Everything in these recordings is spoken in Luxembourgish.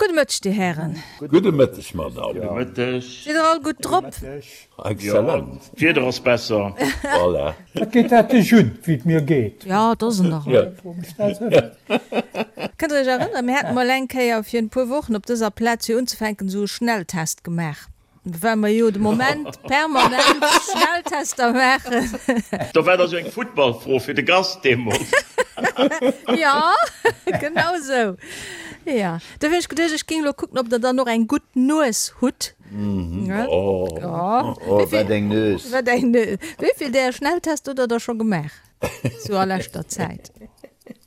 Gudde Mëtteg, Dir Hären. Gudde Mëtteg, Madame. Gudde Mëtteg. Sidd Der all gutt drop? Excellent. D'Wieder ass besser. Voilà. Wat geet dat dech un, wéi et mir geet? Jo, et ass en der Rei. Kënnt Der Iech erënneren, mir haten mol eng Kéier fir en puer Wochen op dëser Plaz fir unzefänken esou e Schnelltest gemaach. Well mer jo de Moment permanent Schnelltester maachen. Do war da sou eng Futtballfro fir de Gast deemools. Jo, genau sou. Jo, dofir hunn ech geduecht, ech géing elo kucken, ob der dann och eng gutt Nues hutt. Oh, wat eng Nues! Wat eng Nues! Wéi vill där Schnelltest hutt der da scho gemaach, sou a leschter Zäit?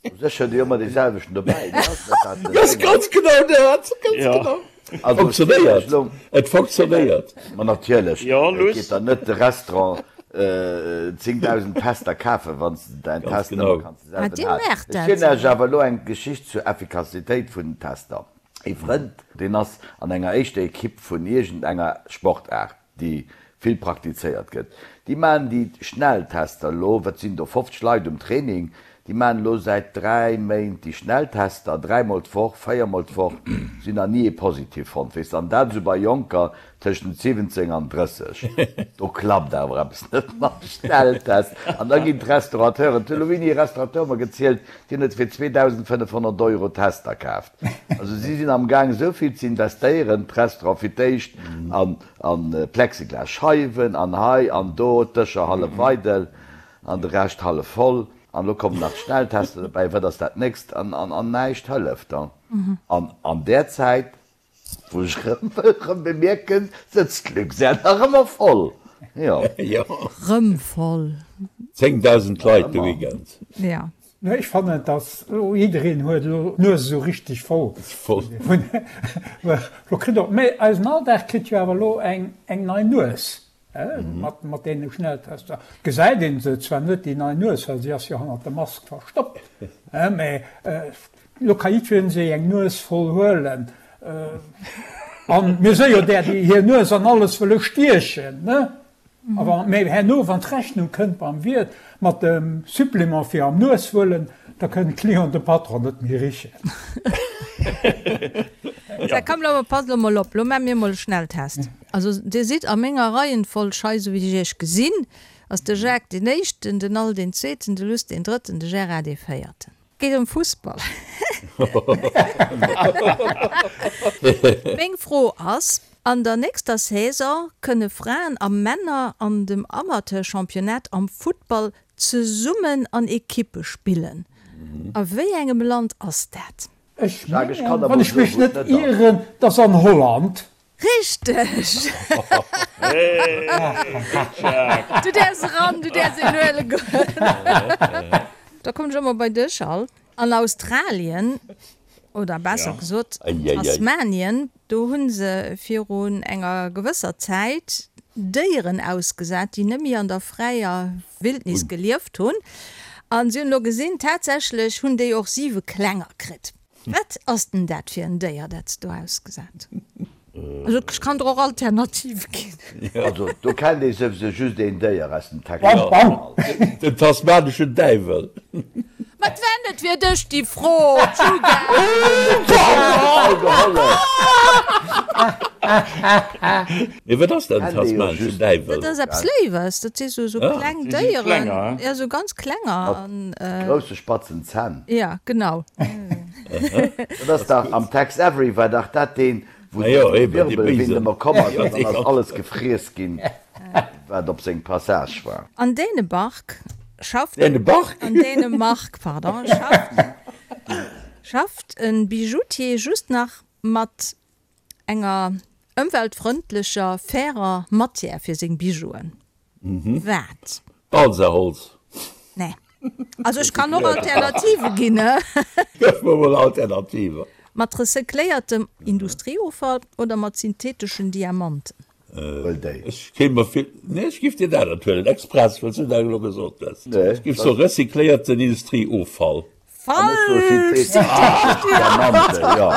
U sech huet ee jo ëmmer dee selwechten dobäi, ne? Ass net dat den Ding? Ganz genau dat, ganz genau. Also ech zielen Funktionéiert, elo. et funktionéiert. Ma natierlech, Jo, et Luss. geet der net de Restaurant 10.000 Tester kafen, wann s de däin Ganz Test ëmmer genau. kanns de Ah, selwen dir halen. maacht Ech dat zielen Iech esou. awer elo eng Geschicht zur Effikassitéit vun den Tester. Ee Frënd, deen ass an enger éischter Ekipp vun iergendenger Sportaart. déi vill praktizéiert gëtt, déi maachen déi Schnelltester elo, wat sinn do, 50 Leit um Training, déi maachen elo säit 3 Méint déi Schnelltester, dräimol d'Woch, véiermol d'Woch, si hunn nach ni ee positiv fonnt, weess de, an dat esou bei Jonker tëschent 17 an 30, do klappt awer eppes net mam Schnelltest. An da ginn d'Restaurateuren, et huet elo wéini e Restaurateur mer gezielt, deen huet fir 2.500 Euro Tester kaaft. Also si sinn am Gaang esou vill ze investéieren, d'Restaurant fir d'éischt an Plexiglas Scheiwen an hei an do, d'Dëscher hallef eidel an de Rescht hallef voll an elo kommen nach d'Schnelltester dobäi, wat ass dat nächst? An näischt hëlleft. An an där Zäit Wou ech rëm wëll rëm bemierken, sëtzt d'Luxair nach ëmmer voll. Jo. Rëm voll. 10.000 Leit de Weekend. Ja. Nee, ech fannen, dass elo jiddereen huet elo d'Nues esou richteg voll. Voll. Lo kritt och, mee eisen Alldag kritt jo awer elo eng eng nei Nues, mat mat deene Schnelltester. Gesäit een se zwar net, déi nei Nues, well si ass jo hannert der Mask verstoppt, mee Lo ka jiddwereen sech eng Nues voll huelen. An mir si jo där, déi hir Nues an alles wëlle stiechen, ne? A wa, mä herno, wann d'Rechnung kënnt beim Wiert mat dem Supplément fir am Nues huelen, da kënnt d'Client de Patron net méi richen. Sou, komm, lo passt elo mol op, lo maache mir mol e Schnelltest. Also, Dir sidd a menger Reihenfolg hei, esou wéi ech Iech gesinn, ass de Jacques deen Éischten, den Al deen Zweeten, de Luss deen Drëtten, de Gérard dee Véierten. Geet ëm Fussball. Meng Fro ass, An der nächster Saison kënne Fraen a Männer an dem Amateurchampionnat am Futtball zesummen an Ekippe spillen. A wéi engem Land ass dat? Ech mengen, wann ech mech net ieren, dass an Holland. Richteg! Du däerfs eran, du däerfs een huele goen. Da kommen ech och mol bei dech, Al. An Australien, oder besser gesot Tasmanien, do hu se virun enger gewësser Zäit Déieren ausgesat, déi net méi an der fräier Wildnis gelieft hunn. A si hunn elo gesinn, tatsächlech hunn déi och siwe Klenger kritt. Wat ass denn dat fir en Déier, dat s do ausgesat hunn? Also ech kann der och Alternative ginn. Also do kennt ee souwisou just een Déier aus dem Text. Den tasmaneschen Däiwel. Ma et war net fir dech déi Fro, Djuga! Mee wat ass dat, en tasmaneschen Däiwel? Dat ass eppes Léiwes, dat si sou kleng Déieren, jo sou ganz klenger. Mat grousse spatzen Zänn. Ja, genau. Dat ass dach am Tex Avery war dach dat deen, wou de Wirbelwind ëmmer komm ass an dann ass alles gefriess ginn, wat op seng Passage war. An Dänebark schafft An Dänemark, pardon, schafft e Bijoutier just nach mat enger ëmweltfrëndlecher, fairer Matière fir seng Bijouen. Wat? Balsaholz. Nee. Also ech kann och Alternative ginn, he? Gëff mer mol Alternativen. Mat recycléiertem Industrieoffall oder mat syntheteschen Diamanten? Huel déi. Ech kéint mer vill, nee ech giff dir dat anert huelen, express, well s du dat elo gesot hues. Ech giff soe recycléierten Industrieoffall. Falsch! Diamanten, jo.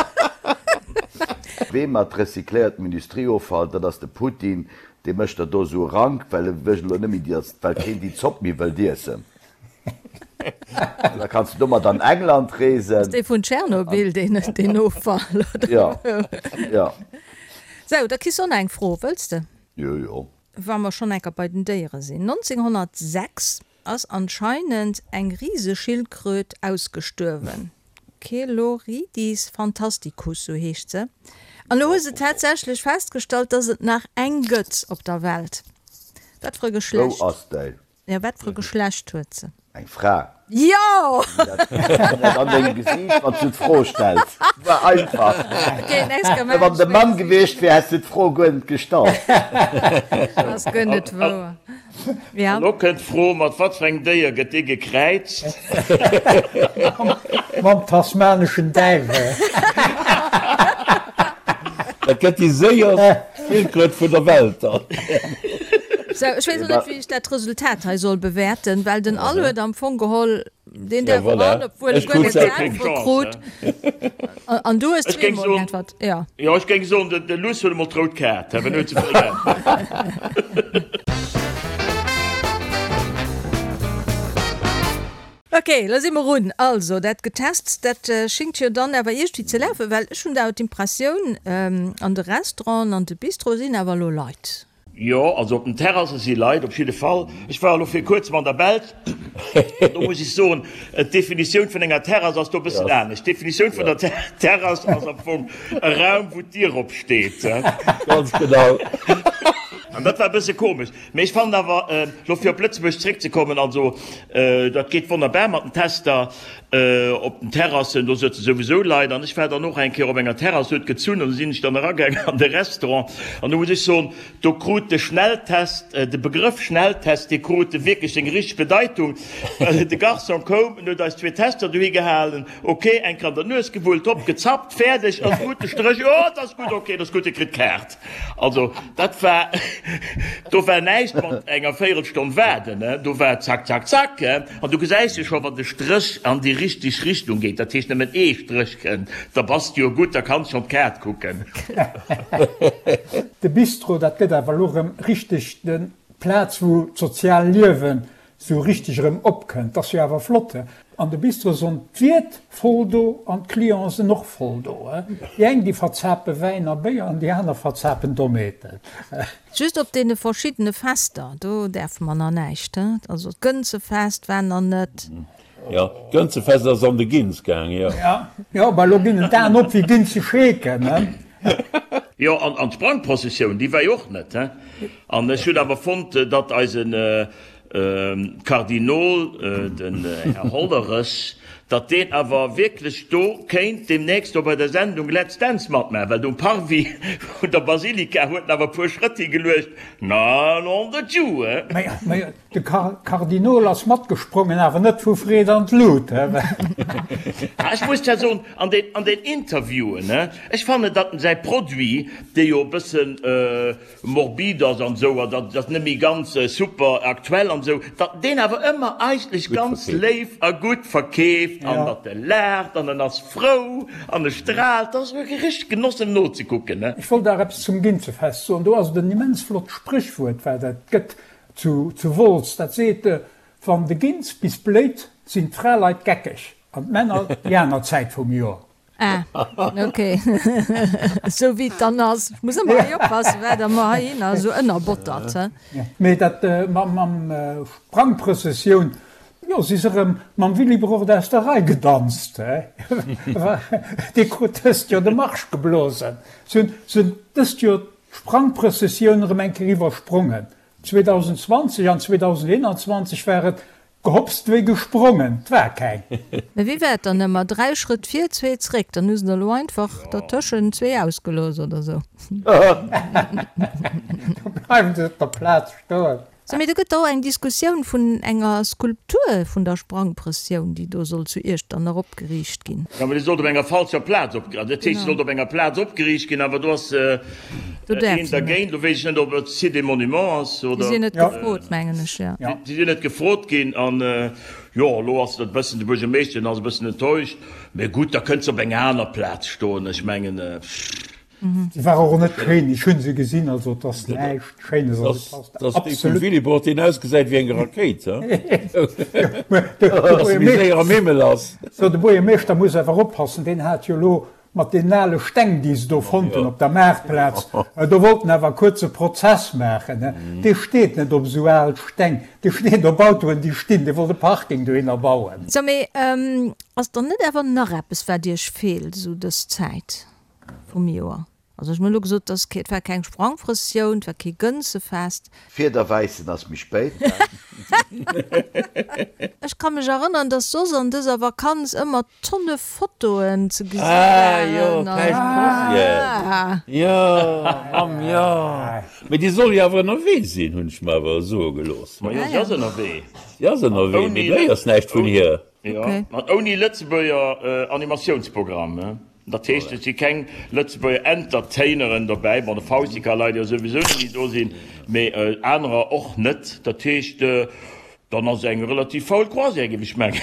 Wee mat recycléiertem Industrieoffall, dat ass de Putin, dee mécht der do esou e Rank, well e wëll elo net méi, well keen déi Zopp méi wëllt iessen. Da kanns du domat an England reesen. Ass dee vun Tschernobyl, deen, deen Offall, oder? Jo, jo. Sou, da kriss och nach eng Fro, wëlls de? Jo, jo. Wa mer schonn enker bei den Déiere sinn, 1906 ass anscheinend eng Riseschildkröt ausgestuerwen. Cheloridis fantasticus, sou heescht se. An elo hu se tatsächlech festgestallt, dass et nach eng gëtt op der Welt. Wat fir e Wou Geschlecht? ass déi? Jo, wat fir e Geschlecht huet se? Eng Fra. Jo! Dat an dengem Gesiicht, wann s du d'Fro stells. War einfach. Okay, nächst Kéier Wann maachen de ech méi Mann gewiescht wier, häss du d'Fro guer net gestallt. Ass guer net wouer. Ja. Elo kënnt d'Fro, Mat wat fir engem Déier gëtt dee gekräizt? Mam tasmaneschen Däiwel. Dat gëtt déi séierst Schildkröt vun der Welt dann. Sou, ech weess och net, wéi ech dat Resultat hei soll bewäerten, well den Al huet am Fong geholl, deen Ja, däerf voilà. eran, obwuel e Ech guer krut net selwer keng d'Äntwert Chance, krut. he? An du hues Ech géing zweemol soen, geäntwert, jo. jo, ech géing soen, de Luss huet emol d'rout Kaart, he, well en huet ze vill geäntwert. Ok, lo si mer un. Also, dat Getests, dat schingt jo dann awer iergendwéi ze lafen, well ech hunn awer d'Impressioun, an de Restauranten, an de Bistroe sinn awer elo Leit. Jo, also op den Terrasse si Leit, op jidde Fall. Ech war elo vir kuerzem an der Belsch an do muss ech soen, d'Definitioun vun enger Terrass ass do e bëssen anescht. D'Definitioun vun der Terrass ass am Fong e Raum, wou d'Dier opsteet. Ganz genau. An dat war e bësse komesch. Mee ech fannen awer, elo fir op Lëtzebuerg zréckzekommen, also dat geet wonnerbar mat den Tester op den Terrassen, do sëtze souwisou Leit. An ech war dann och eng Kéier op enger Terrass, huet gezunn an du sinn ech dann eragaangen an de Restaurant an do muss ech soen, do krut de Schnelltest, de Begrëff Schnelltest, dee krut wierklech seng richteg Bedeitung, well de Garçon koum, en huet eis zwee Tester dohi gehalen, ok, eng Kéier an der Nues gewullt, hopp, gezappt, fäerdeg, ass gutt, de Stréch, jo, et ass gutt, ok, et ass gutt, Dir kritt d'Kaart. Also dat war, do war näischt mat enger Véierelstonn waarden, do war zack, zack, zack. An du gesäis jo scho, wann de Stréch an déi richteg Richtung geet, dat heescht nëmmen ee Stréch kënnt, da bass de jo gutt, da kanns schonn d'Kaart kucken. De Bistro, dat gëtt awer elo erëm richteg de Plaz, wou d'sozial Liewen sou richteg erëm opkënnt. Ass jo awer flott, he? An de Bistro sonn d'Wiert voll do an d'Clienten sen och voll do, he? Déi eng déi verzape Wäin a Béier an déi aner verzapen Dommheeten. Just op deene verschiddene Fester, do däerfe mer nach näischt, he? Also d'Gënzefest war nach net. Jo, d'Gënzefest ass an de Gins gaang, jo. Jo, mä elo ginn en d'Aen op wéi Ginzescheeken, he? Jo, an d'Sprangprozessioun, déi war jo och net, he? An ech hunn awer fonnt, datt eisen Kardinol, den Här Hollerech, datt deen awer wierklech do kéint deemnächst do bei der Sendung Let's Dance matmaachen, well do um Parvis vun der Basilika huet en awer e puer Schrëtt higeluecht, na nom de Dieu, he? Mä de Kardinol ass matgesprongen, awer net vu Freed an d'Lut, he? Ech muss zwar soen, an den, an den Interviewen, he, ech fannen, datt en säi Produit, dee jo e bëssen, morbid ass an esou, an dat ass net méi ganz super aktuell an esou, datt deen awer ëmmer eigentlech ganz léif a gutt verkeeft an datt e laacht an en ass frou an e straalt, dat ass wierklech e richtegt Genoss em nozekucken, ne. Ech wollt nach eppes zum Ginzefest soen. Do ass et en immens flott Spréchwuert, wat et gëtt zu Wolz, dat seet, Wann de Ginz bis bléit, sinn d'Fraleit geckeg an d'Männer déi aner Zäit vum Joer. Ah, ok. Esou wéi et dann ass. Ech muss ëmmer hei oppassen, wat Der mer heihinner esou ënnerbottert, he. Mee dat mam Sprangprëssessioun, jo, si se erëm mam Willibrord aus der Rei gedanzt, he. Dee krut dëst Joer de Marsch geblosen. Si hunn dëst Joer d'Sprangprëssessioun erëm eng Kéier iwwersprongen. 2020 an 2021 war et Gehopst wéi gesprongen, 't war keng. Mä wéi war et dann ëmmer? Dräi Schrëtt vir, zwee zréck. Dann hu se der elo einfach dertëschent zwee ausgelooss oder sou. Do bleiwen se op der Plaz stoen. Sou, mee do gëtt och eng Diskussioun vun enger Skulptur vun der Sprangprëssioun, déi do soll zu Iechternach opgeriicht ginn. Jo, mä déi sollt op enger falscher Plaz opgeriicht, dat heescht, se sollt op enger Plaz opgeriicht ginn, awer do ass een dergéint. Do weess ech net, ob et Site des Monuments ass oder. Déi sinn net gefrot, mengen ech, jo. Déi sinn net gefrot ginn an, jo, elo ass et e bëssen, de Buergermeeschter, deen ass e bëssen enttäuscht. Mee gutt, da kënnt se op enger aner Plaz stoen. Ech mengen, pff. Se war och net schéin, ech hunn se gesinn, also et ass näischt Schéines, also et passt absolut. Dat ass dee vum Willibrord, deen ausgesäit wéi eng Rakéit, he? Dass e méi séier am Himmel ass. So, de Buergermeeschter muss awer oppassen, deen hat jo elo mat deenen ale Steng, déi se do fonnt hunn op der Maartplaz, do wollt en awer kuerz e Prozess maachen, he? Dee steet net op esou al Steng, dee steet op Autoen, déi stinn, dee wollt e Parking dohinner bauen. So, mee ass dann net awer nach eppes, wat Iech feelt esou dës Zäit? Vum Joer. Also ech hunn elo gesot, dass et war keng Sprangprëssioun, et war kee Gënzefest. Fiederwäissen ass méi spéit. Ech ka mech erënneren, dass soss an dëser Vakanz ëmmer Tonne Fotoen ze gesi waren. Ah jo, Päischtcroisière. Jo, Mamm, jo. Mee déi soll jo awer ënnerwee sinn, hunn ech mer awer soe gelooss. Ma jo, si ass ënnerwee. Si ass ënnerwee, mee du héiers näischt vun hir. Jo, an ouni Lëtzebuerger Animatiounsprogramm. Dat heescht, et si keng Lëtzebuerger Entertaineren dobäi. Bon, de Fausti ka leider jo souwisou net méi do sinn, mee anerer och net. Dat heescht, dann ass et eng relativ faul Croisière, géif ech mengen.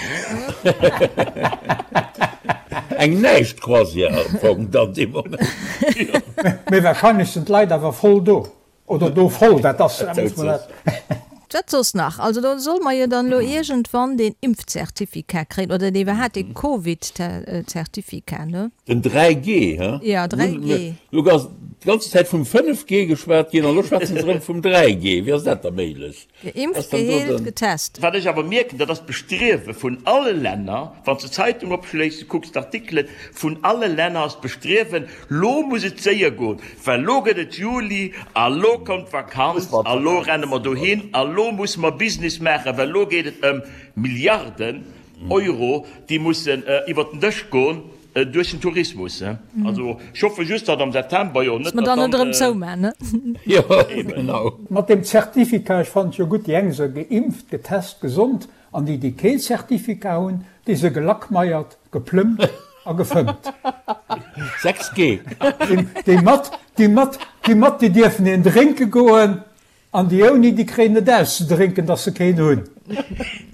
Eng Näischt-Croisière am Fong dann dee Moment. Mee wahrscheinlech sinn d'Leit awer voll do. Oder do voll, dat ass, muss mer dat. Wat soss nach? Also do solle mer jo dann elo iergendwann deen Impfzertificat kréien, oder dee iwwerhaapt dee Covid-Zertificat, ne? Den 3G, he? Ja, 3G. Elo ass d'ganz Zäit vum 5G geschwat ginn an elo schwätzen se erëm vum 3G. Wéi ass dat da méiglech? Geimpft, geheelt, getest. Wat ech awer mierken, dat ass d'Bestriewe vun alle Länner, wann s de d'Zeitung opschléiss, du kucks d'Artikelen, vun alle Länner ass d'Bestriewen, lo muss et séier goen, well lo gëtt et Juli a lo kommt d'Vakanz a lo renne mer dohin a lo musse mer Business maachen, well lo geet et ëm Milliarden Euro, déi mussen iwwert den Dësch goen. Duerch den Tourismus, ne? Also ech hoffe just, datt am September, jo, net datt dann. Dass mer dann net erëm zoumaan, ne? Jo, genau. Mat deem Zertificat, ech fannen et jo gutt, déi eng se geimpft, getest, gesond, an déi, déi kee Zertificat hunn, déi se gelackmeiert, geplëmmt a gefëmmt. 6G. Déi mat, déi mat, déi mat, déi dierfen een drénke goen, An déi ouni, déi kréien et auszedrénken, dass se keen hunn.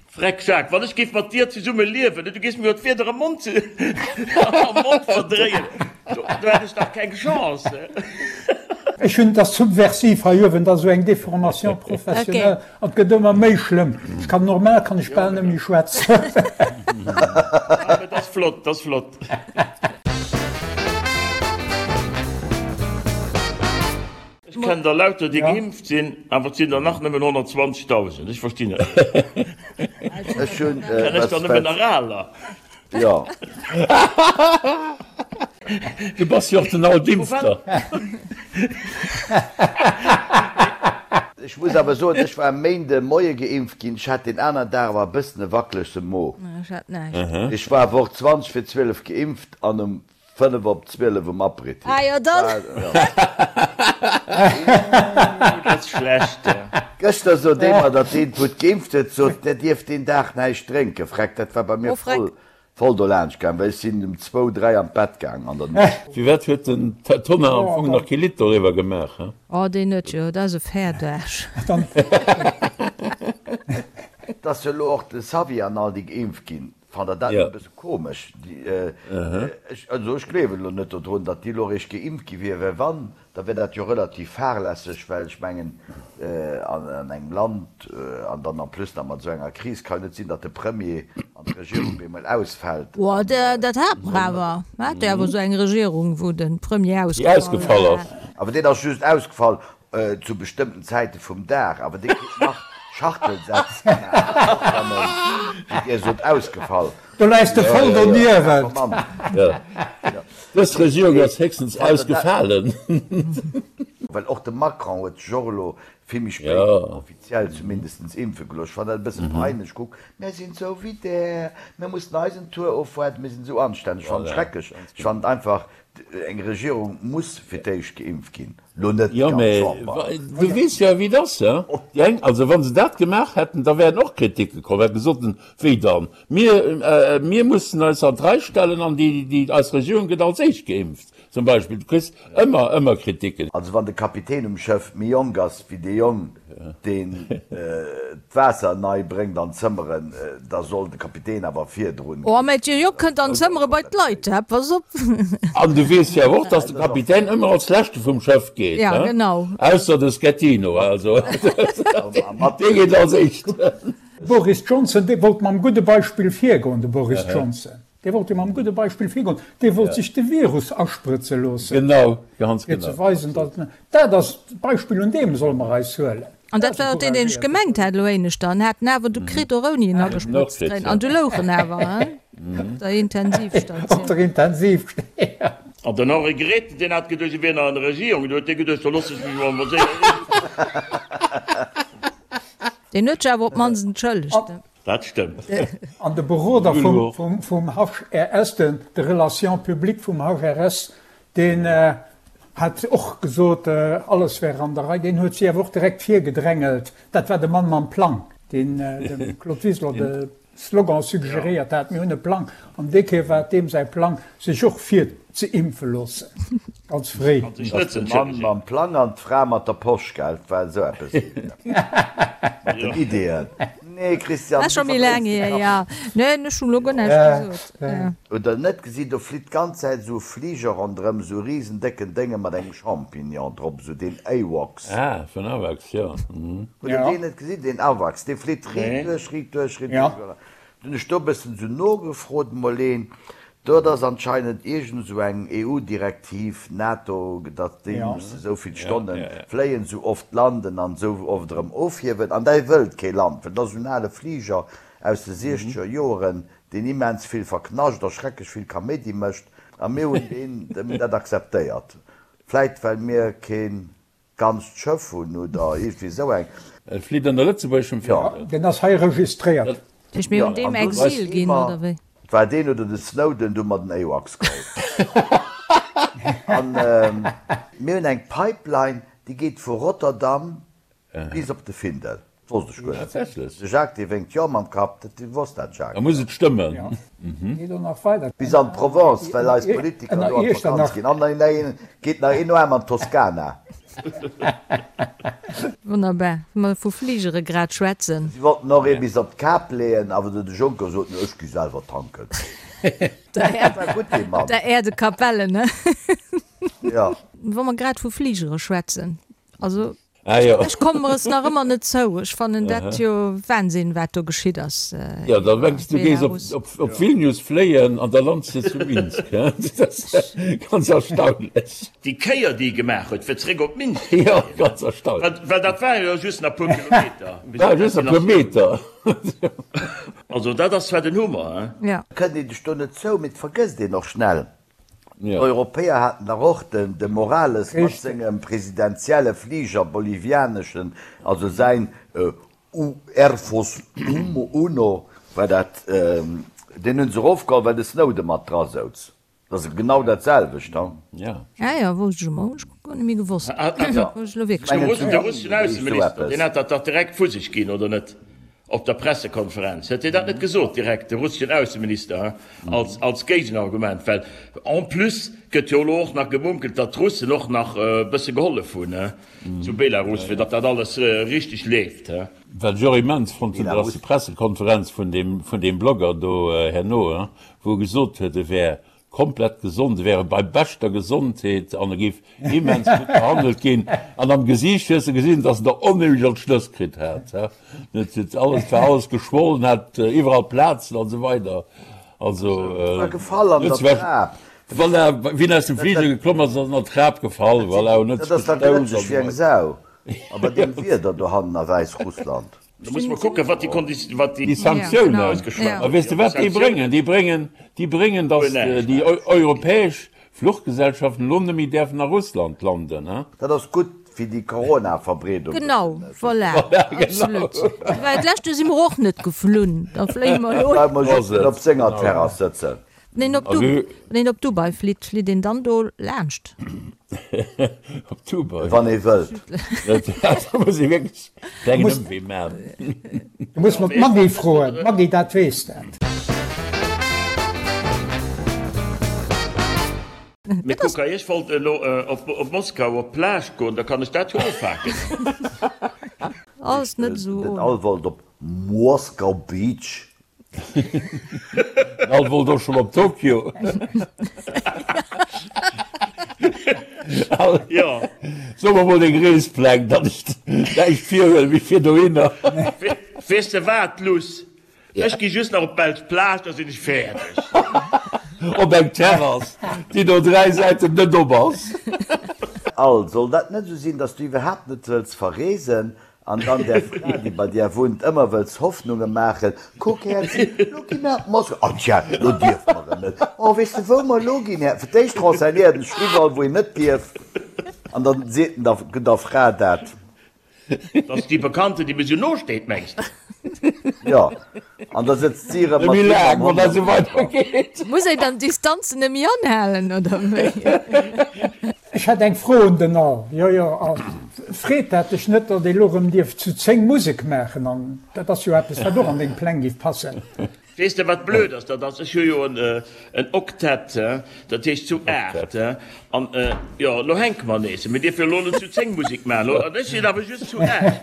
Freck Jacques, wann ech géif mat dir zesumme liewen, du géifs mir jo d'Wierder am Mond am Mond verdréien, do hätt ech dach keng Chance. Ech hunn, et ass subversiv hei uewen, et ass esou eng Déformation professionnelle an et gëtt ëmmer méi schlëmm. Ech kann, normal kann ech bal net méi schwätzen. Ah, mee et ass flott, et ass flott. Ech kennen der lauter déi geimpft sinn, awer et sinn der nach nëmmen 120.000. Ech verstinn et net. Ech hunn Kennen ech der nëmmen nach aler? Jo. Du bass jo och den Altimpfter. Ech muss awer soen, ech war e Méinde Moie geimpft ginn. Ech hat deen aneren Dag awer e bëssen e wackelege Mo. Ech hat näischt. Ech war awer och 20 fir 12 geimpft an um 5 op 12 um Aperitif. Ah jo, dann. Ooh, dat ass schlecht. Gëschter sot ee mer, datt deen, wou geimpft huet, sot, der dierft deen Dag näischt drénken. Freck, dat war bei mir voll, voll dolaanscht gaang, well ech sinn um zwou, dräi an d'Bett gaang an der Nuecht. Firwat huet den Tonnar am Fong nach kee Lidd doriwwer gemaach, he? Oh, deen huet jo, dat ass e Fäerdaarsch. Et ass jo elo och de Xavier an all déi geimpft ginn. Fannt der dat net e bësse komesch? Ech, also ech gleewen elo net dodrun, datt déi elo eréischt geimpft gi wier, well wann, da wär dat jo relativ fahrlässeg, well ech mengen, an engem Land, an dann en plus nach mat esou enger Kris, ka jo net sinn, datt de Premier an d'Regierung bemol ausfält. Oh, dat hate mer awer. Mer hate jo awer esou eng Regierung, wou de Premier ausgefall ass. Awer deen ass just ausgefall Zu bestëmmten Zäite vum Dag, awer dir kritt nach Schachtelsätz gemaach, och wann en, wéi dir sot, ausgefall. Do läis de voll doniewent. Dës Regierung ass héchstens ausgefalen. Well och de Macron huet sech och elo vill méi spéit offiziell zumindestens impfe gelooss. Ech fannen dat e bësse peinlech. Kuck, mär sinn esou wéi där, mär mussen eisen Tour ofwaarden, mir sinn esou anstänneg. Ech fannen et schrecklech. Ech fannen einfach, eng Regierung muss fir d'éischt geimpft ginn. Lo net Jo, d'ganz mä Chamber. du weess jo, wéi et ass, he? Déi eng, also wa se dat gemaach hätten, da wären och Kriticke komm, hätte gesot, wéi dann, mir, mir mussen eis an d'Rei stellen an déi, déi, eis Regierung gëtt als éischt geimpft. Zum Beispill, du kriss ëmmer, ëmmer Kritiken. Also wann de Kapitän um Schëff méi jonk ass wéi dee Jong, deen d'Waasser nei bréngt an d'Zëmmeren, da soll de Kapitän awer virdrun. Oh, mä dee Jong kënnt an d'Zëmmere bei d'Leit, hä? Pass op! An du weess jo awer och, dass de Kapitän ëmmer als Leschte vum Schëff geet, Ja, genau. Ausser de Schettino, also dee geet als Éischten. Boris Johnson, dee wollt mam gudde Beispill virgoen, de Boris Johnson. Dee wollt jo mam gudde Beispill virgoen. Dee wollt sech de Virus asprëtze loossen. Genau, ganz genau. Fir ze weisen, datt en, dat ass d'Beispill, un deem solle mer eis huelen. An dat war och deen, deen ech gemengt hat elo éineschter. En hat en awer du kritt, och ouni en agesprëtzt ze kréien. An du louch en awer, hein, op der Intensivstatioun. Op der Intensivstatioun. An den Henri Grethen, deen hat geduecht, e wier nach an der Regierung. Du huet dee geduecht, da loosse ech mech emol séier impfen. Deen huet sech awer op d'mannst entschëllegt. Dat stëmmt. An de Beroder vum HRS, de Relations publiques vum HRS, deen hat och gesot, alles wär an der Rei. Deen huet si awer och direkt virgedrängelt. Dat war de Mann mam Plang, deen dem Claude Wiseler de Slogan suggeréiert hat, Mir hunn e Plang. An déi Kéier war et deem säi Plang, sech och virzeimpfe loossen, ganz fréi. An sech net ze entschëllegen. De Mann mam Plang an d'Fra mat der Posch, gell? Et war esou eppes mat den Ideeën. Nee, Christian, du verdréis de Kapp. Neen, ech hunn elo guer näischt gesot. Hutt der net gesi, do flitt d'ganz Zäit esou e Fliger ronderëm, esou e risen décken Dénge mat engem Champignon drop, esou deen AWACS. Ah, vun AWACS, jo. Hutt der deen net gesinn, deen AWACS? Dee flitt riit duerch, riit duerch, riit duerch. Dunn hunn ech do e bëssen esou nogefrot, mol een, Dat ass anscheinend iergend esou eng EU-Direktiv, NATO, datt déi musse esou vill Stonne fléien, esou oft landen an esou oft erëm ofhiewen. An däi wëllt kee Land, well dat ass esou en ale Fliger aus de siechzeger Joeren, deen immens vill verknascht a schrecklech vill Kaméidi mécht. A mir hunn deen, dat akzeptéiert. Vläit well mir kee Ganzt Schëff hunn oder iergendwéi esou eng. E flitt ënner lëtzebuergeschem Fändel. Deen ass hei registréiert. Dat heescht, mir hunn deem Exil ginn, oder wéi? Et war deen oder de Snowden, du mer den AWACS geholl. An mir hunn eng Pipeline, déi geet vu Rotterdam bis op de Findel. Dat wosst ech guer net. Tatsächlech? De Jacques, dee wénkt jo mam Kapp. Dat wosst dat Jacques. Da muss et stëmmen. Geet och nach weider. Bis an d'Provence, well eis Politiker do an d'Vakanz ginn. An dann geet nach een Aarm an d'Toskana. Wonnerbar. Wa mer vu Fligere grad schwätzen. Si wollten och ee bis op d'Kap leeën, awer de Juncker sot, No, ech gi selwer tanken. Dat war gutt, dee Mann. Der Air de Capellen, ne? Jo. Wa mer grad vu Fligere schwätzen, also. Ah jo. Ech kommen mer es nach ëmmer net zou. Ech fannen dat jo Wahnsinn, wat do geschitt ass. Jo, da mengs du gees op op Vilnius fléien an da lands de zu Minsk, he? Dat ass ganz erstaunlech. Déi Kéier, déi e gemaach huet, fir zeréck op Minsk ze Jo, fléien, ganz erstaunlech. well dat waren jo just nach e puer Kilometer bis War op just e puer Destinatioun. Meter. Also dat ass zwar den Hummer, he? Ja. Kënnt een sech do net zou, mee et vergësst een och schnell. Ja. D'Europäer haten dach och den de Morales mat Richtig. sengem presidentielle Fliger, bolivianeschen, also säin Air Force Uno war dat, deen hunn se erofgeholl, well de Snowden mat dra souz. Dat ass genau dat selwecht, ha? Ja. Ah jo, wousst ech emol, hunn ech guer net méi gewosst. Hunn ech elo wierklech De net Russen, de russeschen Ausseminister, deen hat dat dach direkt vu sech ginn, oder net? Op der Pressekonferenz huet hien dat net gesot direkt, de russeschen Ausseminister, als, als Géigenargument, well en plus gëtt jo elo och nach gemunkelt, datt d'Russen och nach e bësse gehollef hunn zu Belarus, fir datt dat alles richteg leeft. Wat ech och immens fonnt hunn, dat ass déi Pressekonferenz vun deem, vun deem Blogger do herno, wou e gesot huet, e wär komplett gesond, e wäre bei beschter Gesondheet an e géif immens gutt behandelt ginn. An am Gesiicht hues de gesinn, dass en der onheemlech an d'Schnëss kritt hat. Et huet alles, war alles geschwollen, hat iwwerall Plazen an esou weider. Also, War gefall an der Trap. Voilà, wéi en aus dem Fliger geklomm ass, ass en an d'Trap gefall, voilà, en huet Dat ass sech da gestouss glëtscheg an wéi eng esou weider. Sau a bei deem Wieder dohannen a Wäissrussland. Da muss mer kucken, wat déi Konditi-, wat déi. Déi Sanktiounen, a weess de wat déi bréngen? Déi bréngen, déi bréngen, datt déi europäesch Fluchgesellschaften elo net méi däerfen a Russland landen, he? Dat ass gutt fir déi Corona-Verbreedung. Genau, voilà, absolut. Well d'lescht Joer si mer och net geflunn, da fléie mer elo. Bleiwe mer just net op senger Terrass sëtzen. Wann een op Du, wann een op Dubai flitt, flitt een dann do laanscht? Op Dubai? Wann ee wëllt. Da muss ee wierklech klengen Ëmwee man. Du muss mer d'Maggy froen, d'Maggy dat weess dat. Mee kuck hei, ech wollt elo op Moskau op d'Plage goen, da kann ech dat jo ofhaken. Alles net esou Den Al wollt op Moskau Beach. Den Al wollt och schonn op Tokio. Al, Jo. So mer mol deng Reespläng, datt ech näischt virhuelen, mee fir dohinner. Weess de wat, Luss? Ech gi just nach op d'Belsch Plage, da sinn ech fäerdeg. Op eng Terrass, déi no 3 Säiten net op ass. Al, soll dat net esou sinn, dass du iwwerhaapt net wëlls verreesen an dann där Fra, déi bei dir wunnt, ëmmer wëlls Hoffnunge maachen, Kuck, Häerzi, lo gi mer op Moskau. Oh tja, lo dierfe mer erëm net. Oh, weess de, wou mer elo ginn, Här? Fir d'éischt renseignéiert en sech iwwerall, wou een net dierf, an dann seet en der der Fra dat. Dat ass déi Bekannten, déi mir sou no steet, mengs de? Jo, an da sëtzt si erëm mat him am Hond am Camper. Muss een dann d'Distanzen net méi anhalen, oder wéi? Ech hätt eng Fro un den Al. Jo, jo, Al, freet dat dech net, datt ee lo rëm dierf zu 10 Musek maachen? An dat ass jo eppes, wat och an deng Pläng giff passen. Weess de wat blöd ass? Dat ass, ech hu jo en Oktett, dat heescht zu 8, an jo, elo hänke mer nees. Mir dierfe jo elo net zu 10 Musek maachen, an ech sinn awer just zu 8.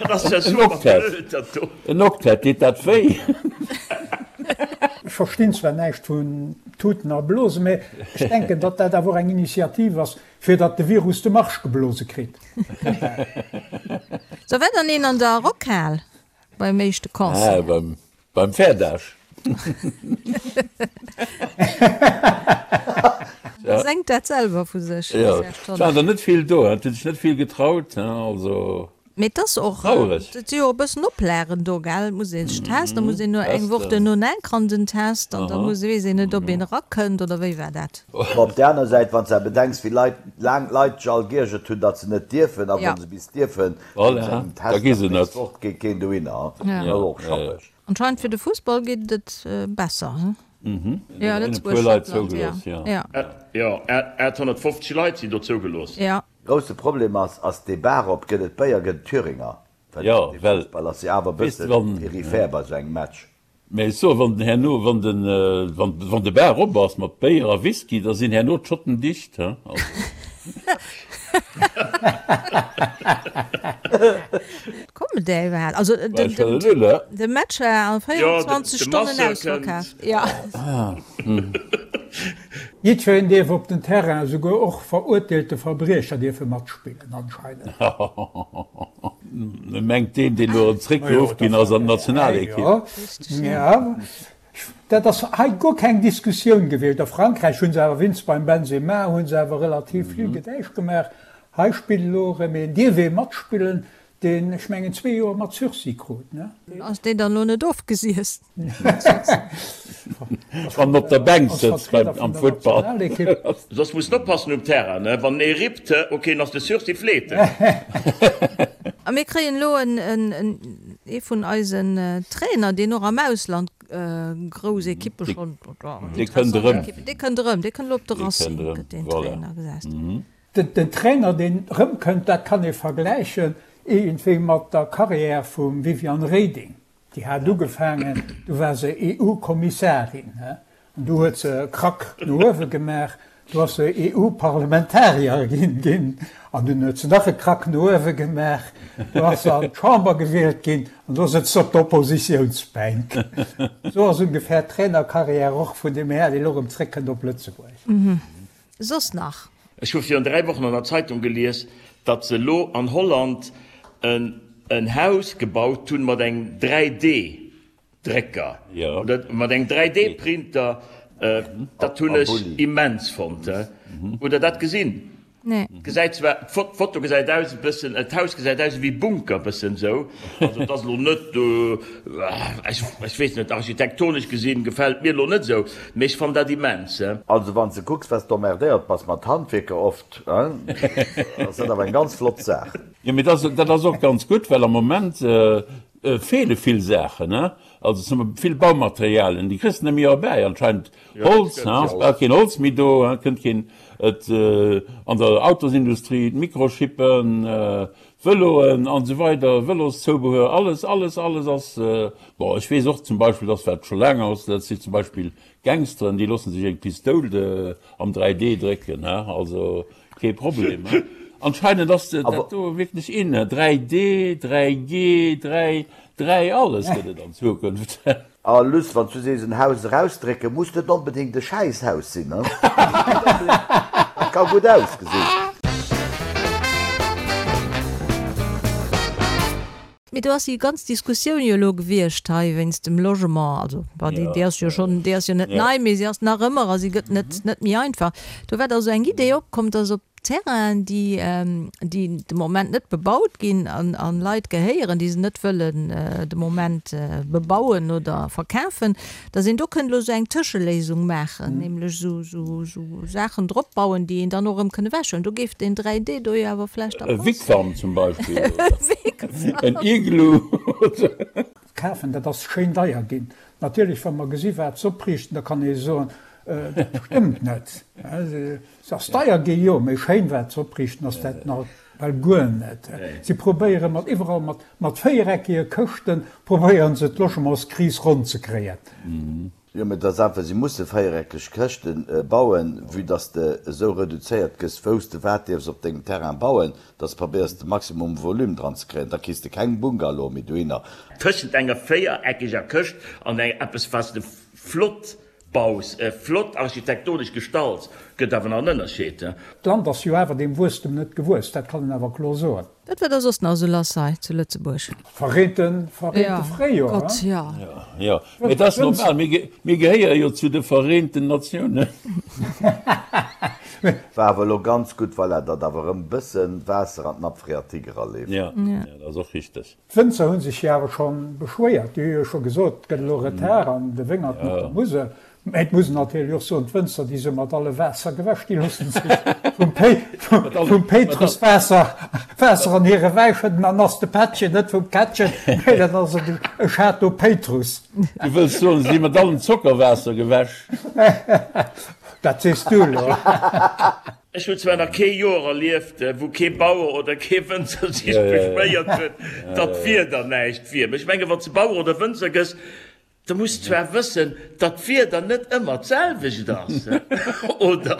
Dat ass ja super blöd, dat do. En Oktett, deet dat wéi? Ech verstinn zwar näischt vun Tuten a Blosen, mä ech denken, datt dat awer och eng Initiativ ass, fir datt de Virus de Marsch geblose kritt. Sou, war dann een an der Rockhal? Beim éischte Concert. Ah, beim, beim Fäerdaasch. Ja. Sengt dat selwer vu sech. Ja, et waren der net vill do, et hunn sech net vill getraut, also. Mee et ass och, et si jo e bëssen Oplagen do, gell? Et muss ee sech testen, da muss een no eng Woch duerno enk an den Test an da muss, weess een net, ob een erakënnt oder wéi war dat? Mä op där aner Säit, wann s de bedenks, wéi Leit, laang d'Leit sech all geiergert hunn, datt se net dierfen, a wa se bis dierfen, Voilà, da gi se net. Fort geet keen dohinner, dat ass och schappeg. Anscheinend fir de Fussball geet et besser, he? Jo, Lëtzebuerg, Schottland, jo. Jo, 850 Leit sinn do zougelooss. Jo. Grousse Problem ass, ass dee Bar op, gëtt et Béier, gëtt et Thüringer? Well dee Fussball ass jo awer e bësse peripher bei esou engem Match. Mä ech soen, wann herno, wann den, wann, wann de Bar op ass mat Béier a Whisky, da sinn herno d'Schotten dicht, he? Also. Kommen déi iwwerhaapt? Also den, den, de Match war a 24 Stonnen ausverkaaft. Jo. Jiddwereen dierf op den Terrain, esouguer och verurteelte Verbriecher dierfe matspillen anscheinend. Mengt deen, deen elo erëm zréckgeruff ginn ass an d'Nationalekipp. Jo, dat ass hei guer keng Diskussioun gewiescht. A Frankräich hu se awer, wéinst beim Benzema, hu se awer relativ vill Gedäisch gemaach. Hei spillt elo erëm een, dierf ee matspillen, deen, ech mengen, zwee Joer mat Sursis krut, ne? Ass deen dann elo net ofgesiess? Wann en op der Bänk sëtzt beim am Futtball. Soss muss en oppassen um Terrain, ne? Wann ee rippt, ok, dann ass de Sursis fleete. A mir kréien elo en, en, ee vun eisen Trainer, deen och am Ausland grouss Ekippe schonn, Dee kënnt erëm. Dee kënnt erëm, dee kënnt elo op de Racing, gëtt deen Trainer gesat. Den Trainer, deen erëmkënnt, dat kann ee vergläichen iergendwéi mat der Carrière vum Viviane Reding. Déi hat ugefaangen, du war se EU-Kommissarin, an du huet se e Krack no uewe gemaach, du ass se EU-Parlamentarier ginn, an dunn huet se nach e Krack no uewe gemaach, du ass se an d'Chamber gewielt ginn, an do sëtzt se op der Oppositiounsbänk. Esou ass ungefähr d'Trainercarrière och vun deem Här, deen elo erëm zréckkënnt op Lëtzebuerg. Soss nach? Ech hu virun 3 Wochen an der Zeitung gelies, datt se elo an Holland en Haus gebaut hunn mat engem 3D Drécker oder mat engem 3D Printer. Dat hunn ech immens fonnt. Hutt der dat gesinn? Nee. Gesäit zwar, d'Foto gesäit aus e bëssen, d'Haus gesäit aus ewéi Bunker bëssen esou, also et ass elo net, ech weess net, architektonesch gesinn gefält mir elo net esou, mee ech fannen dat immens. Also wann s de kucks wat s d'emmerdéiert bass mat Handwierker oft, ass dat awer eng ganz flott Saach. Jo, mee dat ass och ganz gutt, well am Moment feele vill Saachen. Also zum vill Baumaterialien, déi kriss de net méi erbäi anscheinend. Holz, ha, ass bal keen Holz méi do, ha, kënnt keen, et an der Autosindustrie, d'Mikrochippen, d'Vëloen an esou weider, Vëloszoubehör, alles, alles, alles ass, bon, ech weess och zum Beispill, dass wat scho laang ass, dat si zum Beispill Gangsteren, déi loosse sech eng Pistoul am 3D drécken, ha, also kee Problem, ha. Anscheinend ass dat do wierklech in, 3D, 3G, 3, 3 alles gëtt et an Zukunft. A Luss, wann s du sees en Haus erausdrécken, muss net onbedéngt e Schäisshaus sinn, ne? Dat ka gutt ausgesinn. Mee do ass déi ganz Diskussioun jo elo gewiescht hei wéinst dem Logement. Also, bon, déi, déi ass jo schonn, déi ass jo net nei, mee si ass nach ëmmer a si gëtt net, net méi einfach. Do war da sou eng Idee opkomm, dass op Terrainen, déi, déi de Moment net bebaut ginn an, an Leit gehéieren, déi se net wëllen de Moment bebauen oder verkafen, dass een do kënnt elo esou eng Tëscheléisung maachen, nämlech esou, esou, esou Saachen drop bauen, déi een dann och erëm kënn ewechhuelen. Do géif deen 3D do jo awer vläicht da E passen. Wigwam zum Beispill oder en Iglu oder. Kafen, dat ass schéin deier ginn. Natierlech, wa mer gesi wat se opriichten, da kann ee soen, dat stëmmt net. Se ass deier gi, jo, mee schéin wat se opriichten ass dat nach well guer net. Si probéiere mat iwwerall mat mat véiereckege Këschten probéieren se d'Logementskris ronn ze kréien. Jo, mee et ass einfach, si musse véiereckeg Këschte bauen, vue dass de esou reduzéiert gëss, wou s de wat dierfs op dengem Terrain bauen, dass de probéiers de Maximum Volume dran ze kréien. Da kriss de keng Bungalowe méi dohinner. Tëschent enger véiereckeger Këscht an eppes, wat s de flott Baus, flott architektonesch gestalt, gëtt awer nach en Ënnerscheed. D'Land ass jo awer deem Wuesstem net gewuess, dat kann een awer kloer soen. Wat war da soss nach esou lass hei zu Lëtzebuerg? Verreente, verreente Fréijoer, Gott, jo. Jo, mee et ass normal, mir gehéiere jo zu de Vereenten Natiounen. War awer elo ganz gutt, voilà, datt awer erëm bëssen Waasser an d'Nappe phréatique eraleeft. Jo, dat ass och richteg. D'Wënzer hu sech jo awer scho beschwéiert. Déi hu jo scho gesot, et gëtt elo Retard an de Wéngerten op der Musel. Mä et muss een natierlech och soen, d'Wënzer, déi si mat alle Waasser gewäsch, déi loosse sech vum Péitrus Waasser Waasser an hire Wäi schëdden. Dann ass de Pättchen net vum Kättchen, mä dann ass et e Château Péitrus. Du wëlls soen, se si mat allem Zockerwaasser gewäsch? Dat sees du elo. Ech hunn zwar nach kee Joer erlieft, wou kee Bauer oder kee Wënzer sech beschwéiert huet, datt d'Wieder näischt wier. Mee ech mengen, wann s de Bauer oder Wënzer gëss, da muss de zwar wëssen, datt d'Wieder net ëmmer d'selwecht ass, oder?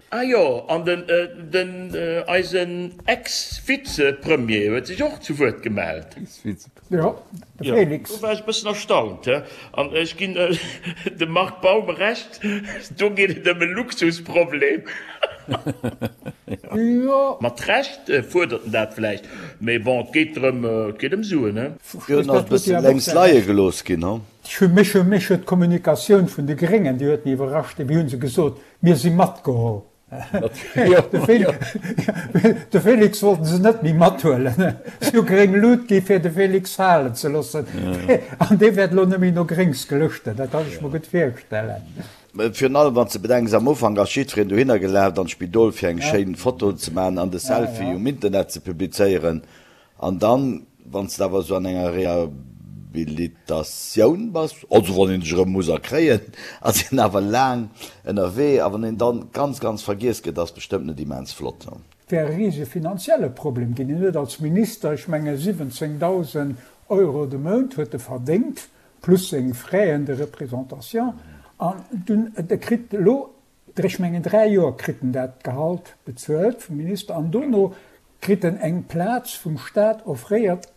Ah jo, an den, den, eisen Ex-Vize-Premier huet sech och zu Wuert gemellt. Jo, de Félix. Do war ech e bëssen erstaunt. An ech ginn dem Marc Baum Recht, do geet et ëm e Luxusproblem. Jo. Mat Recht fuerdert en dat vläicht, mee bon, et geet drëm, et geet ëm Suen, he. Hien ass e bësse lénks leie gelooss ginn, he? Mech huet d'Kommunikatioun vun de Gréngen, déi huet mech iwwerrascht. Wéi hu se gesot, mir si matgeholl. De Félix wollten se net méi mathuelen. Si hu gréng Lut gi fir de Félix falen ze loossen. An dee wäert elo net méi no Gréngs gelëschten. Dat kann ech mer gutt virstellen. Virun allem wann s de bedenks, am Ufank ass jiddwereen dohinner gelaf an d'Spidol fir eng schéin Foto ze maachen an de Selfie um Internet ze publizéieren. An dann, wann s de awer esou an enger Rehabilitatioun bass, also wann een sech erëm muss erkréien, ass een awer laang ënnerwee. A wann een dann ganz, ganz vergiess gëtt, ass bestëmmt net immens flott. Et wär e risege finanzielle Problem ginn. Hien huet als Minister, ech menge 17.000 Euro de Mount huet e verdéngt, plus seng Frais de représentation. An dunn, e kritt elo Ech mengen 3 Joer kritt en dat Gehalt bezuelt vum Minister an dono kritt en eng Plaz vum Staat offréiert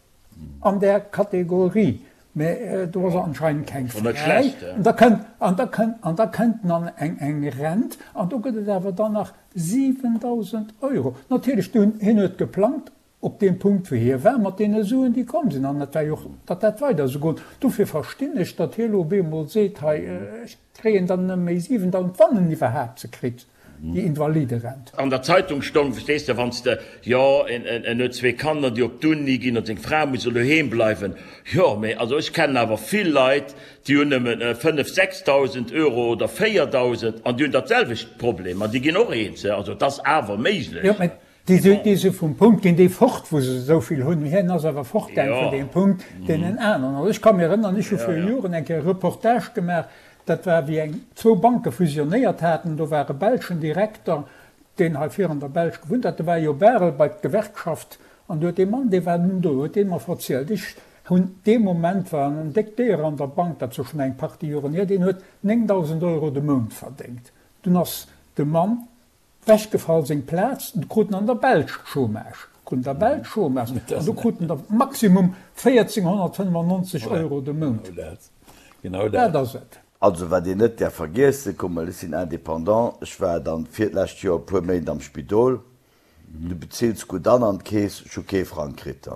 an där Kategorie, mä do ass anscheinend keng fräi. An da kënnt, an da kënnt, an da kënnt en an eng eng Rent an do gëtt et awer dann nach 7.000 Euro. Natierlech, hien huet geplangt Op deem Punkt, wou hie war, mat deene Suen, déi komm sinn, an et war jo och, datt dat weider esou goen. Dofir verstinn ech, datt hie elo op eemol seet, hei, ech kréien dann nëmme méi 7.000, wann en iwwerhaapt se kritt, déi Invaliderent. An der Zeitung stong, verstees de, wann s de, jo, en huet zwee Kanner, déi op d'Uni ginn, an seng Fra muss elo doheem bleiwen. Jo, mee also ech kennen awer vill Leit, déi hunn nëmmen 5, 6.000 Euro oder 4.000 an déi hunn dat selwecht Problem an déi ginn och eens. Also et ass awer méiglech. Déi si vum Punkt ginn déi fort, wou se esou vill hunn. Hien ass awer fortgaang vun deem Punkt, deen en aneren. Also ech ka mir erënnern, ech hu viru Joren eng Kéier e Reportage gemaach, dat war wéi eng zwou Banke fusionéiert haten, do war e belschen Direkter, deen hei vir an der Belsch gewunnt hat, de war jo Barel bei d'Gewerkschaft an du huet dee Mann, dee war dunn do, huet dee mer verzielt, ech hunn dee Moment, war en déckt Déier an der Bank, dat ass jo schonn eng Partie Joren hier, deen huet 9.000 Euro de Mount verdéngt. Dunn ass de Mann wechgefall, seng Plaz, du krut en an der Belsch Chômage, krut en der Belsch Chômage an du krut en der Maximum 1.495 Euro de Mount. Genau dat ass et. Also wat een net däerf vergiessen, kuck mol, ech sinn Indépendant, ech war dann fir d'lescht Joer e puer Méint am Spidol, du bezills gutt an an d'Keess, ech hu kee Frang kritt.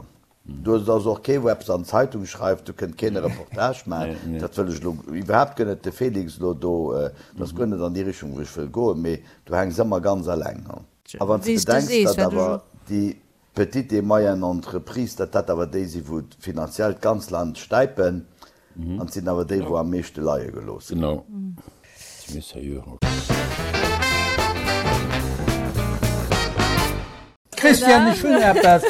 Do ass och kee wou eppes an d'Zeitung schreift, do kënnt keen e Reportage maachen, dat wëll ech elo iwwerhaapt guer net, de Félix elo do, dat ass guer net an déi Richtung wou ech wëll goen, mee du hänks ëmmer ganz eleng. A wann s de bedenks, datt awer déi Petite et moyenne entreprise, datt dat awer déi sinn, wou finanziell d'ganz Land stäipen, an et sinn awer déi, wou am meeschte leie gelooss ginn. Genau. Christian, ech hunn eppes.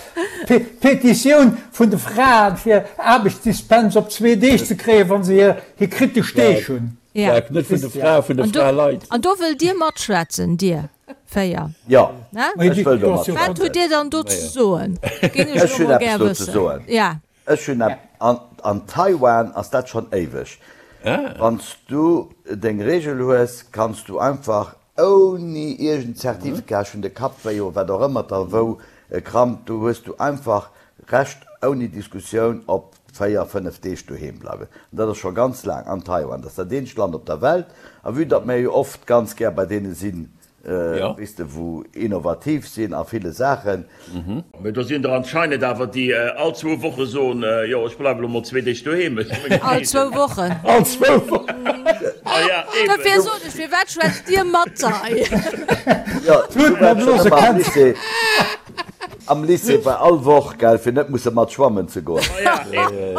D'Petitioun vun de Fraen, fir Aarbechtsdispens op zwee Deeg ze kréien, wa se hir kritesch Deeg hunn. Net vun de Fraen, vun de Fraleit. An do wëllt Dir matschwätzen, Dir 4? Jo, ech wëll do matschwätzen. Wat hutt Dir dann do ze soen? Géing ech elo mol gär wëssen. Ech hunn eppes. An Taiwan ass dat schonn éiweg. Wann s du deng Reegel hues, kanns du einfach ouni iergend Zertifikat, ech hunn de Kapp wéi oder wat och ëmmer der wou krampt, do hues du einfach Recht ouni Diskussioun op 4, 5 Deeg doheem bleiwen. An dat ass scho ganz laang an Taiwan. Dat ass dat eenzegt Land op der Welt. A vue datt mär jo oft ganz gär bei deene sinn, weess de, wou innovativ sinn a ville Saachen. Mee do sinn der anscheinend awer, déi all zwou Woche soen, jo, ech bleiwe lo mol zwee Deeg doheem, ech hu meng All zwou Wochen. All zwou Wochen. Ah ja, eben. Dofir sot ech, firwat schwätzt Dir mat hei? Jo, du waars schonn ëmmer am Lycée. Am Lycée war all Woch, gell, fir net musse mat schwammen ze goen. Ah ja, eben.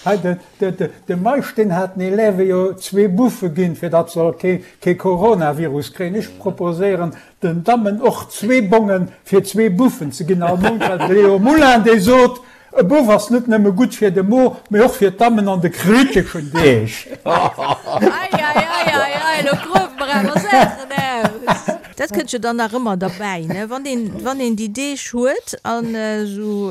Hei, de Meisch, deen hat den Elève jo zwee Buffe ginn, fir datt se kee Coronavirus kréien. Ech proposéieren den Dammen och zwee Bongen fir zwee Buffen ze ginn all Mount, well de Léo Moulin, dee sot, E Buff ass net nëmme gutt fir de Mo, mee och fir d'Dammen an de kriteschen Deeg. Ei, ei, ei, ei, ei, lo gruewe mer awer Saachen aus. Dat kënnt jo dann nach ëmmer derbäi, ne, wann een, wann een déi Deeg huet an esou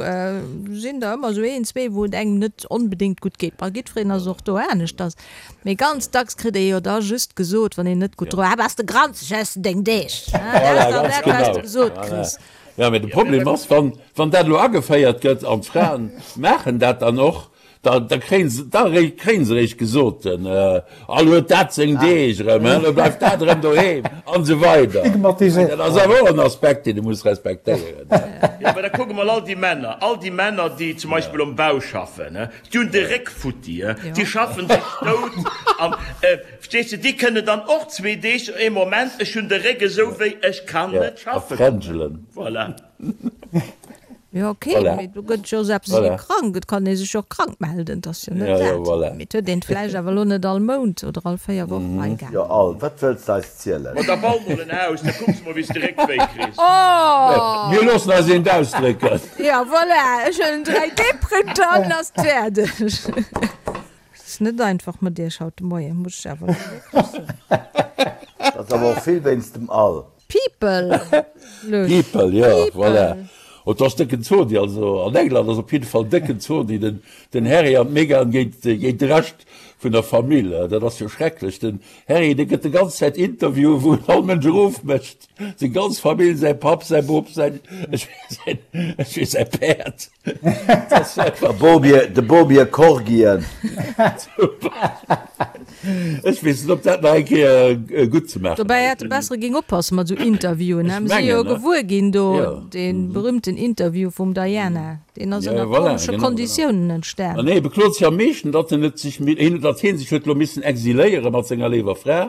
sinn der ëmmer esou een, zwee, wou et engem net onbedéngt gutt geet. Bei jiddwereen ass et och do aneschters, mee ganz dacks kritt ee jo da just gesot, wann een net gutt dru, Ah, bass de granzeg, hues de deng Deeg, ne? Dat ass dann dat, wat s de gesot kriss. Jo, mee de Problem ass, wann, wann dat elo ageféiert gëtt an d'Fraen maachen dat dann och, da, da kréien se, da kréien se eréischt gesot, All huet dat seng Deeg erëm, he, elo bleift dat erëm doheem an esou weider. Dat ass awer och en Aspekt, deen e muss respektéieren. Jo, mä da kucke mol all déi Männer, all déi Männer, déi zum Beispill um Bau schaffen, he, déi hunn de Réck futti, he, déi schaffen sech dout an, Verstees de, déi kënnen dann och zwee Deeg, ee Moment, ech hunn de Réck esou wéi, ech kann net schaffen. Voilà. Jo, ok, mee do gëtt jo selbst ee krank, et kann ee sech jo och krank melden, et ass jo net dat. Mee et huet een et vläicht awer elo net all Mount oder all 4 Wochen hei gaangen. Jo, all, wat wëlls de eis zielen? Ma da bau mol en Haus, da kucks mol wéi s de Réckwéi kriss. Oh! Mir loossen eis eent ausdrécken. Jo, voilà, ech huelen en 3D-Printer an ass et fäerdeg. Et ass net einfach mat iech haut de Moien, muss ech awer elo wierklech soen. Dat ass awer och vill wéinst dem Al. People! People, jo, voilà. Et ass décken Zodi, also an England ass op jidde Fall décken Zodi, den, den Harry an d'Meghan géint, géint de Rescht vun der Famill. Dat ass jo schrecklech. Den Harry, dee gëtt de ganz Zäit Interviewen, wou en all Mënsch erofmécht, seng ganz Famill, säi Papp, säi Bop, säin, ech weess, ech weess, säi Päerd. De Bobier Corgien. Ech weess net, ob dat nach eng Kéier gutt ze maachen Dobäi hätt e besser géing oppasse mat esou Interviewen. Mir si jo gewuer ginn do, dee berühmten Interview vum Diana, deen ass ënner komesche Konditiounen entstan. An hie beklot sech am meeschten, datt en et sech, datt hie sech huet elo missen exiléiere mat senger léiwer Fra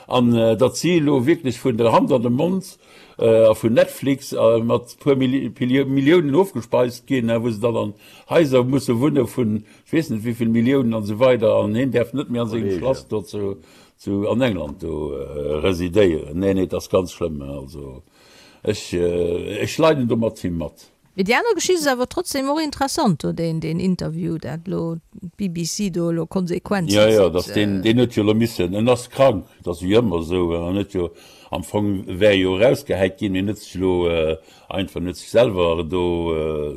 an datt si elo wierklech vun der Hand an de Mond a vun Netflix mat puer Milliounen ofgespeist ginn, wou se dann an Haiser musse wunne vun ech weess net wéivill Milliounen an esou weider an hien däerf net méi an sengem Schlass do zu an England do residéieren. Nee, nee, et ass ganz schlëmm. Also. Ech, ech leiden do mat him mat. Mee déi aner Geschicht ass awer trotzdem och interessant do, deen, deen Interview, dat elo d'BBC do elo Konsequenzen Jo, jo, dass deen, deen huet jo elo missen, en ass krank, dat ass wéi ëmmer esou, en huet jo, am Fong wär e jo erausgehäit ginn, mee en huet sech elo einfach, en huet sech selwer do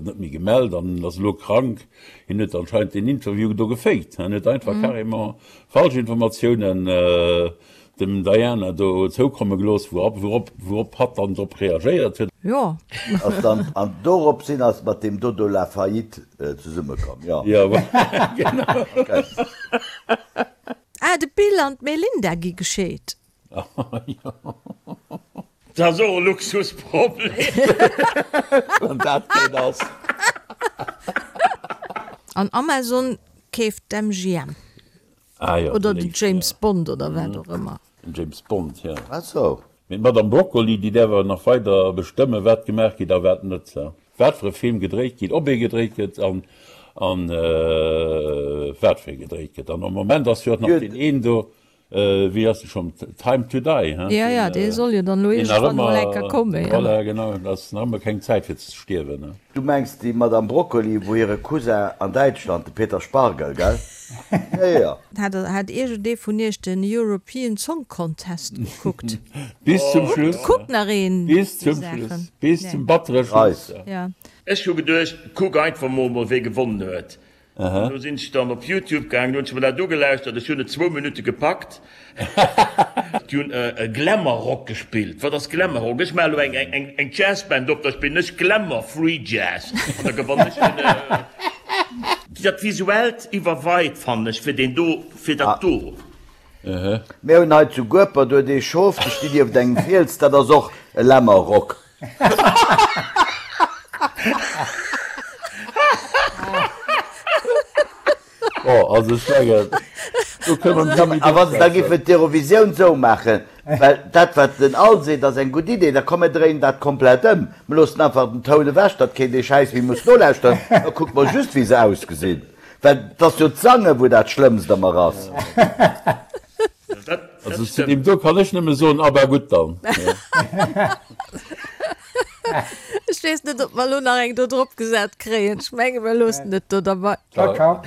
net méi gemellt an ass elo krank. Hien huet anscheinend deen Interview do gefaked, en huet einfach carrément falsch Informatiounen dem Diana do zoukomme gelooss, wourop wourop hatt dann drop reagéiert huet. Jo. Ass dann, an dorop sinn ass mat deem Dodo La Faillite zesummekomm, jo. Jo, genau. Okay. Ah, de Bill an d'Melinda gi gescheet. Jo. Dat ass och e Luxusproblem. Wann dat keen ass. An Amazon keeft d'MGM. Ah jo, Oder den James Bond oder wat och ëmmer. Den James Bond, jo. Ah sou. Mee d'Madame Broccoli, déi däerf awer nach weider bestëmmen, wat gemaach geet a wat net. Wat fir e Film gedréit geet, ob ee gedréit gëtt an an wat fir ee gedréit gëtt. An am Moment ass jo och nach deen een do, Wéi ass de schonn? Time to die, hein? Ja, ja, dee soll jo dann elo iergendwann emol eng Kéier kommen, ja. Voilà, genau, et ass nach ëmmer keng Zäit fir ze stierwen, hein? Du mengs déi Madame Broccoli, wou hire Cousin an Däitschland, de Peter Spargel, gell? Ja, ja. Hat, hat iergendee vun iech den European Song Contest gekuckt? Bis zum Schluss. Kuckt nach een Bis zum Schluss. Bis zum battere Schluss. Ja. Ech hu geduecht, kuck einfach mol mol wee gewonnen huet. An do sinn ech dann op Youtube gaangen, hunn ech mer dat ugelauschtert. Ech hunn et zwou Minutte gepackt. Déi hunn e Glamour Rock gespillt. Wat ass Glamour Rock? Ech maache elo eng Jazzband op, da spillen ech Glamour Free Jazz an da gewannen ech den. Dat Visuellt iwwerweit, fannen ech, fir deen do, fir dat do. Mir hunn hei zu Guepert huet ee Schof, déi stinn nieft engem Fiels, dat ass och e Lämmerrock. Bon, also ech mengen, do kënne mer net méi A wa se da drop géifen d'Eurovisioun esou maachen, well dat wat den Al seet ass eng gutt Idee, da komm mir dréinen dat komplett ëm, mir loossen einfach den Toun ewech, datt keen dee Schäiss méi muss nolauschteren, da kucke mer just wéi se ausgesinn, well 't ass jo d'Sange wou dat Schlëmmst ëmmer ass. Also zu deem do kann ech nëmme soen, aber gutt dann. Ech weess net, ob mer elo nach eng do drop gesat kréien. Ech menge mer loossen et do derbei. Ciao, ciao.